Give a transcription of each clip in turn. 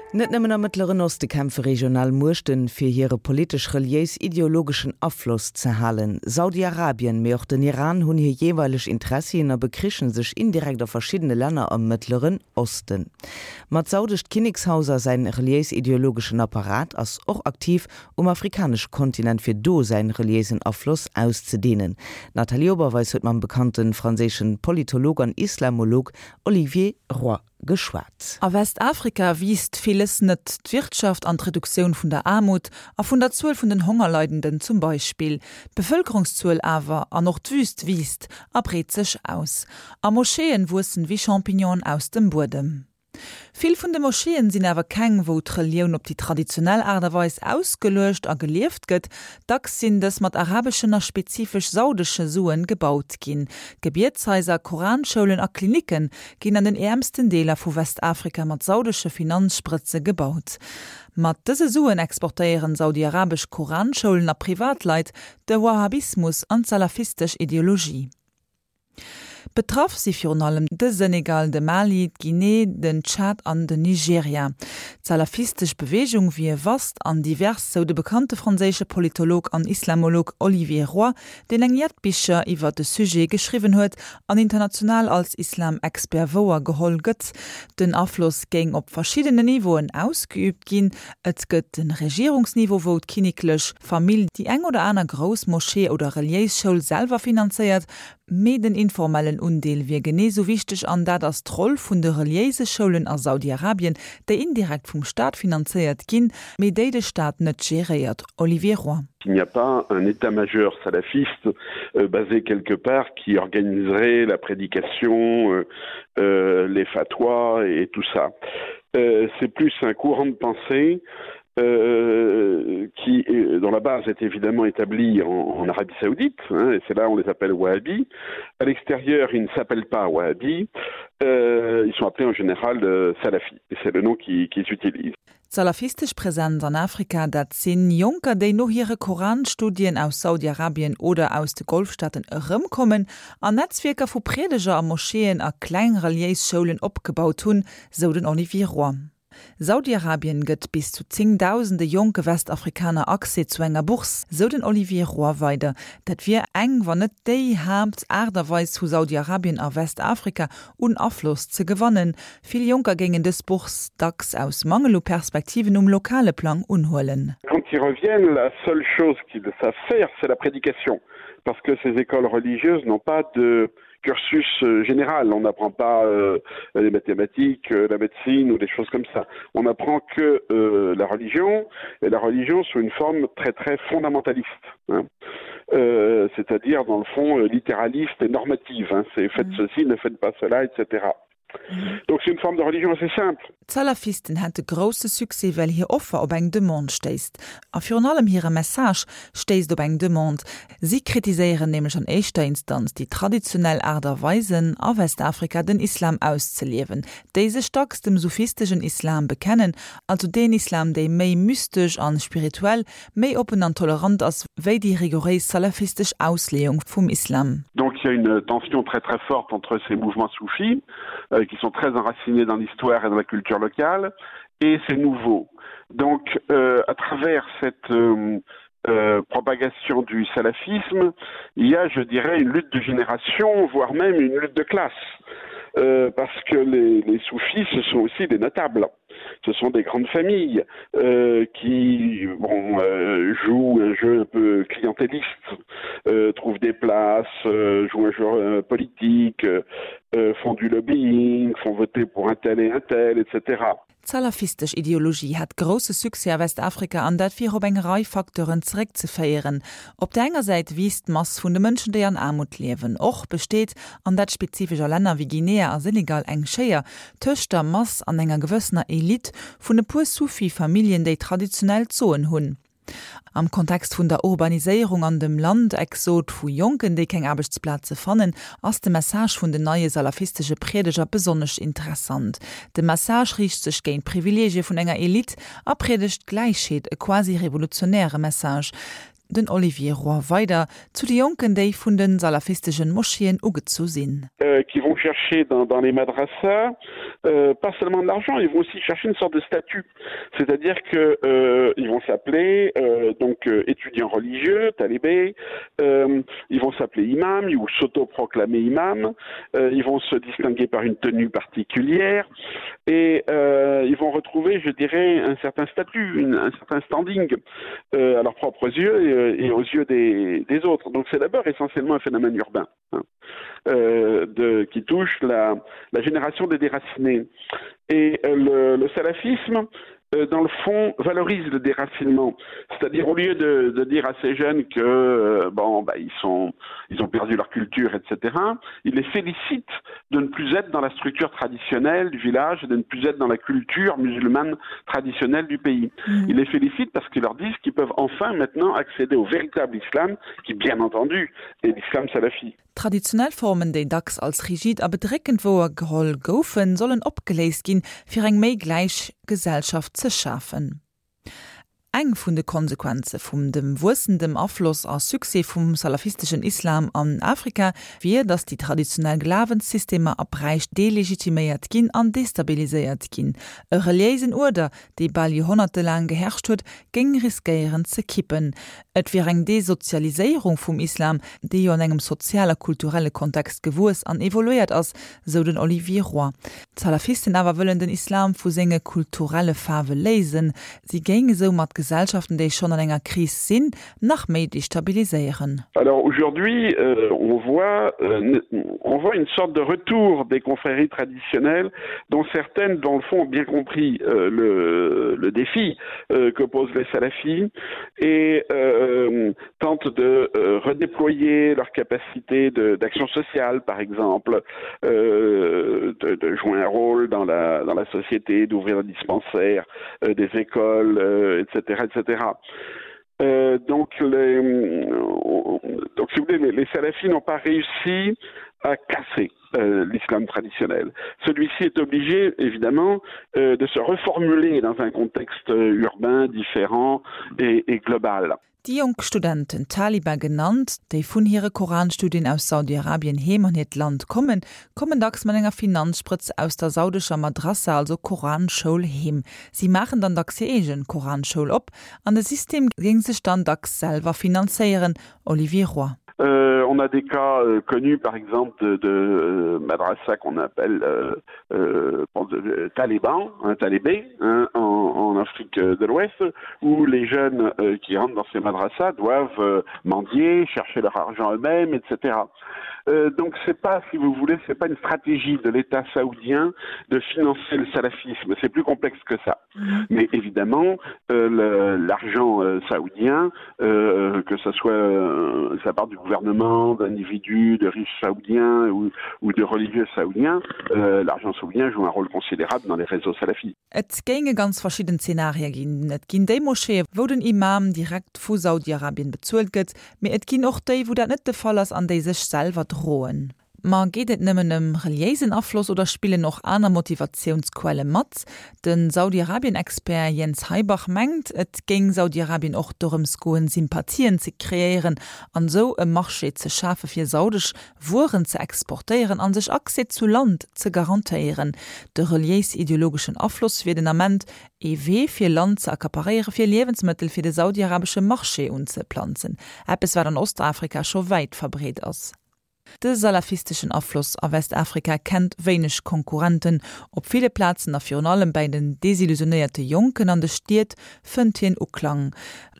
Net nëmmen am Mëttleren Oste kämpfe regional Muechten, fir hire politesch-reliéis-ideologeschen Afloss ze halen. Saudi-Arabien, mee och den Iran hunn hir jeeweileg Interessien a bekrichen sech indirekt a verschiddene Länner am Mëttleren Osten. Ma d'saudescht Kinnekshaus a säin reliéis-ideologeschen Apparat ass och aktiv um afrikanesche Kontinent fir do säin reliéisen Afloss auszedehnen. D'Nathalie Oberweis huet mam bekannte franséischen Politolog an Islamolog Olivier Roy geschwat. A Westafrika wiisst villes net, d'Wirtschaft an d'Reduktioun vun der Aarmut a vun der Zuel vun den Hongerleidenden zum Beispill. D'Bevëlkerungszuel awer, an och d'Wüst wiisst a breet sech aus. A Moscheeën wuessen wéi Champignonen aus dem Buedem. Vill vun de Moscheeën sinn awer keng, wou d'Relioun op déi traditionell Aart a Weis ausgeluecht a gelieft gëtt. Dacks sinn dës mat arabeschen a spezifesch saudesche Suen gebaut ginn. Gebietshaiser, Koranschoulen a Klinicke ginn an den äermsten Deeler vu Westafrika mat saudesche Finanzsprëtze gebaut. Mat dëse Suen exportéieren saudiarabesch Koranschoulen a Privatleit de Wahhabismus an d'salafistesch Ideologie. Betraff si virun allem de Senegal, de Mali, d'Guinée, den Tschad an den Nigeria. D'salafistesch Beweegung wier vast an divers, sou de bekannte franséische Politolog an Islamolog Olivier Roy, deen eng jett Bicher iwwer de Sujet geschriwwen huet an international als Islam-Expert wouer geholl gëtt. Den Afloss géing op verschiddenen Niveauen ausgeüübt ginn, Et gëtt de Regierungsniveau, wou d'kinneklech Famill déi eng oder aner grouss Moschee oder reliéis Schoul selwer finanzéiert, mee den informellen Undeel wier genee sou wichteg an dat ass d'Roll vun de reliéise Schoulen a Saudi-Arabien, déi indirekt vum Staat finanzéiert ginn, mee déi de Staat net geréiert. Olivier Roy. Il n'y a pas un état-major salafiste basé quelque part qui organiserait la prédication, les fatwas et tout ça. C'est plus un courant de pensée euh, qui dont la base est évidemment établie en, en Arabie Saoudite hein, et c'est là on les appelle Wahhabi. À l'extérieur, ils ne s'appellent pas Wahhabi, euh, ils sont appelés en général euh, Salafi et c'est le nom qu'ils qui utilisent. D'salafistesch Präsenz an Afrika, dat sinn Jonker, déi no hire Koranstudien aus Saudi-Arabien oder aus de Golfstaaten erëmkommen an Netzwierker vu Priedeger a Moscheeën a kleng reliéis Schoulen opgebaut hunn, sou den Olivier Roy. Saudi-Arabien gëtt bis zu zéngdausende jonke Westafrikaner Accès zu enger Bourse, sou den Olivier Roy weider. Dat wier eng, wann net déi Haapt Aart a Weis vu Saudi-Arabien a Westafrika un Afloss ze gewannen. Vill Jonker géingen dës Bourse dacks aus Mangel u Perspektiven um lokale Plang unhuelen. Quand ils reviennent, la seule chose qu'ils savent faire, c'est la prédication, parce que ces écoles religieuses n'ont pas de cursus euh, général. On n'apprend pas euh, les mathématiques, euh, la médecine ou des choses comme ça. On apprend que euh, la religion et la religion sous une forme très très fondamentaliste. Hein. Euh, c'est-à-dire dans le fond euh, littéraliste et normative. C'est faites mmh. ceci, ne faites pas cela, etc. Donc c'est une forme de religion assez simple. D'Salafisten hätte grousse Succès, well hir Offer op eng Demande stéisst. A virun allem hire Message stéisst op eng Demande. Si kritiséieren nämlech an éischter Instanz déi traditionell Aart a Weisen, a Westafrika den Islam auszeliewen, déi sech dacks dem sufisteschen Islam bekennen, also deen Islam, déi méi mystesch an spirituell, méi oppen an tolerant ass wéi déi rigouréis salafistesch Ausleeung vum Islam. Donc il y a une tension très très forte entre ces mouvements soufis euh, qui sont très enracinés dans l'histoire et dans la culture locale et ces nouveaux. Donc euh, à travers cette euh, euh, propagation du salafisme, il y a, je dirais, une lutte de génération, voire même une lutte de classe. Euh, parce que les, les soufis, ce sont aussi des notables. Ce sont des grandes familles euh, qui bon, euh, jouent un jeu un peu clientéliste, euh, trouvent des places, euh, jouent un jeu euh, politique, euh, euh, font du lobbying, font voter pour un tel et un tel, etc. D'salafistesch Ideologie hat grousse Succès a Westafrika an dat wier op eng Rei Facteuren zeréckzeféieren. Op der enger Säit wiisst d'Mass vun de Mënschen, déi an Aarmut liewen. Och besteet, an dat spezifesch a Länner wéi Guinea a Senegal, eng Schéier tëscht der Mass an enger gewëssener Elite vun e puer Sufi-Familljen, déi traditionell d'Soen hunn. Am Kontext vun der Urbaniséierung an dem Landexod vu Jonken, déi keng Aarbechtsplaze fannen, ass de Message vun den neie salafistesche Priedeger besonnesch interessant. De Message riicht sech géint d'Privileegie vun enger Elite a priedegt Gläichheet, e quasi revolutionäre Message. Den Olivier Roy weider zu de Jonken, déi vun de salafistegen Moscheeën ugezu sinn. Euh, qui vont chercher dans, dans les madrassas euh, pas seulement de l'argent, ils vont aussi chercher une sorte de statut. C'est-à-dire que euh, ils vont s'appeler euh, donc euh, étudiants religieux, talibés, euh, ils vont s'appeler imam ou s'autoproclamer imam, euh, ils vont se distinguer par une tenue particulière et euh, ils vont retrouver, je dirais, un certain statut, une, un certain standing euh, à leurs propres yeux et, euh, et aux yeux des, des autres. Donc c'est d'abord essentiellement un phénomène urbain hein, euh, de, qui touche la, la génération des déracinés. Et euh, le, le salafisme, euh, dans le fond valorise le déracinement c'est-à-dire au lieu de, de dire à ces jeunes que euh, bon bah, ils sont ils ont perdu leur culture etc il les félicite de ne plus être dans la structure traditionnelle du village et de ne plus être dans la culture musulmane traditionnelle du pays mmh. il les félicite parce qu'ils leur disent qu'ils peuvent enfin maintenant accéder au véritable islam qui bien entendu est l'islam salafi Traditionell Formen, déi dacks als rigid a bedréckend wouergeholl goufen, sollen opgeléist ginn, fir eng méi gläich Gesellschaft ze schafen. Eng vun de Konsequenze vum dem wuessendem Afloss a Succès vum salafisteschen Islam an Afrika wier, datt déi traditionell Glawenssystemer a Bräich delegitiméiert ginn an destabiliséiert ginn. E reliéisen Uerder, dee bal joerhonnertelaang geherrscht huet, géing riskéieren ze kippen. Et wier eng Desozialiséierung vum Islam, dee jo an engem sozial a kulturelle Kontext gewuess an evoluéiert ass, sou den Olivier Roy. D'Salafisten awer wëllen den Islam vu senge kulturelle Faarwe léisen. Si géinge soumat Gesellschaften, déi schonn an enger Kris sinn, nach méi destabiliséieren. Alors aujourd'hui, euh, on voit, euh, on voit une sorte de retour des confréries traditionnelles dont certaines dans le fond ont bien compris euh, le, le défi euh, que posent les salafis et euh, tentent de euh, redéployer leur capacité d'action sociale par exemple euh, de, de jouer un rôle dans la, dans la société d'ouvrir des dispensaires euh, des écoles euh, etc etc euh, donc les euh, donc si vous voulez, les, les salafis n'ont pas réussi à casser euh, l'islam traditionnel. Celui-ci est obligé évidemment euh, de se reformuler dans un contexte euh, urbain différent et, et global. Déi jonk Studenten, Taliban genannt, déi vun hire Koranstudien aus Saudi-Arabien heem an hiert Land kommen, kommen dacks mat enger Finanzsprëtz aus der saudescher Madrassa, also Koranschoul, heem. Si maachen dann dacks hir eegen Koranschoul op an de System géing sech dann dacks selwer finanzéieren, Olivier Roy. Euh, on a des cas euh, connus par exemple de, de euh, madrassa qu'on appelle euh, euh, euh taliban un talibé hein, en, en Afrique de l'Ouest où les jeunes euh, qui rentrent dans ces madrassas doivent euh, mendier chercher leur argent eux-mêmes etc euh, donc c'est pas si vous voulez c'est pas une stratégie de l'état saoudien de financer le salafisme c'est plus complexe que ça mmh. mais évidemment euh, l'argent euh, saoudien euh, que ce soit euh, sa part du gouvernement d'individus de riches saoudiens ou, ou de religieux saoudiens euh, l'argent saoudien joue un rôle considérable dans les réseaux salafis Et géinge ganz verschidden Zenarie ginn. Et ginn déi Moscheeë wou den Imam direkt vu Saudi-Arabien bezuelt gëtt, mee et ginn och déi wou dat net de Fall ass an déi sech selwer droen. Ma geet et nëmmen ëm reliéisen Afloss oder spillen och aner Motivatiounsquelle mat? De Saudi-Arabien-Expert Jens Heibach mengt, et géing Saudi-Arabien och dorëms goen, Sympathien ze kreéieren an esou e Marché ze schafe fir saudesch Wueren ze exportéieren an sech Accès zu Land ze garantéieren. De reliéis-ideologeschen Afloss wier den Ament ee Wee fir Land ze accaparéiere fir Liewensmëttel fir de saudiarabesche Marché unzeplanzen, eppes wat an Ostafrika scho wäit verbreet ass. De salafisteschen Afloss a Westafrika kennt wéineg Konkurrenten. Op ville Plazen a virun allem bäi den desillusionéierte Jonken an de Stied fënnt hien Uklang.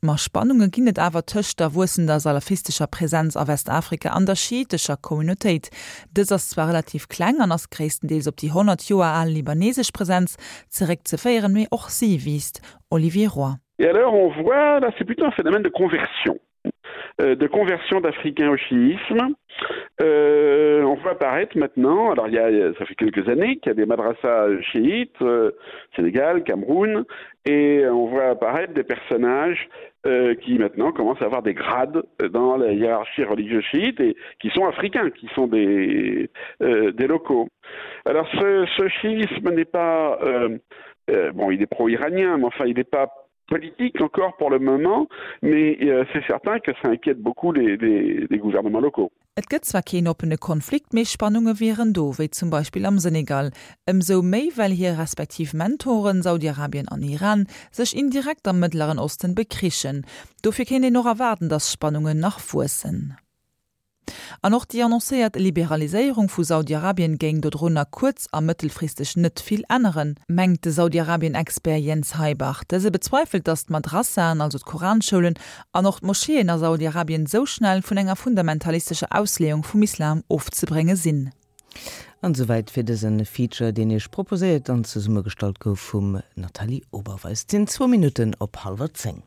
Ma Spannunge ginn et awer tëscht der wuessender salafistescher Presenz a Westafrika an der schiitescher Communautéit. Dës ass zwar relativ kleng an ass gréisstendeels op déi 100 Joer al libanesesch Presenz zeréckzeféieren, mee och si wiisst. Olivier Roy. Et alors on voit là c'est plutôt un phénomène de conversion euh, de conversion d'Africains au chiisme. Euh, on voit apparaître maintenant, alors il y a, ça fait quelques années qu'il y a des madrassas chiites, euh, Sénégal, Cameroun, et on voit apparaître des personnages euh, qui maintenant commencent à avoir des grades dans la hiérarchie religieuse chiite et qui sont africains, qui sont des, euh, des locaux. Alors ce, ce chiisme n'est pas euh, euh, bon il est pro-iranien, mais enfin il n'est pas. Politique encore pour le moment, mais euh, c'est certain que ça inquiète beaucoup les, les, les gouvernements locaux. Et gëtt zwar keen oppene Konflikt, mee Spannunge wieren do, wéi zum Beispill am Senegal. Ëmsou méi, well hir respektiv Mentoren, Saudi-Arabien an Iran, sech indirekt am Mëttleren Osten bekrichen. Dofir kéint een och erwaarden, datt d'Spannungen nach wuessen. An och déi annoncéiert Liberaliséierung vu Saudi-Arabien géing dodrunner kuerz a mëttelfristeg net vill änneren, mengt de Saudi-Arabien-Expert Jens Heibach. Dëse bezweifelt, datt d'Madrassaen, also d'Koranschoulen, an och d'Moscheeën a Saudi-Arabien sou schnell vun enger fundamentalistescher Ausleeung vum Islam ofzebrénge sinn. An esouwäit fir dëse Feature, deen Iech proposéiert an zesummegestallt gouf vum Nathalie Oberweis. Et sinn zwou Minutten op hallwer 10.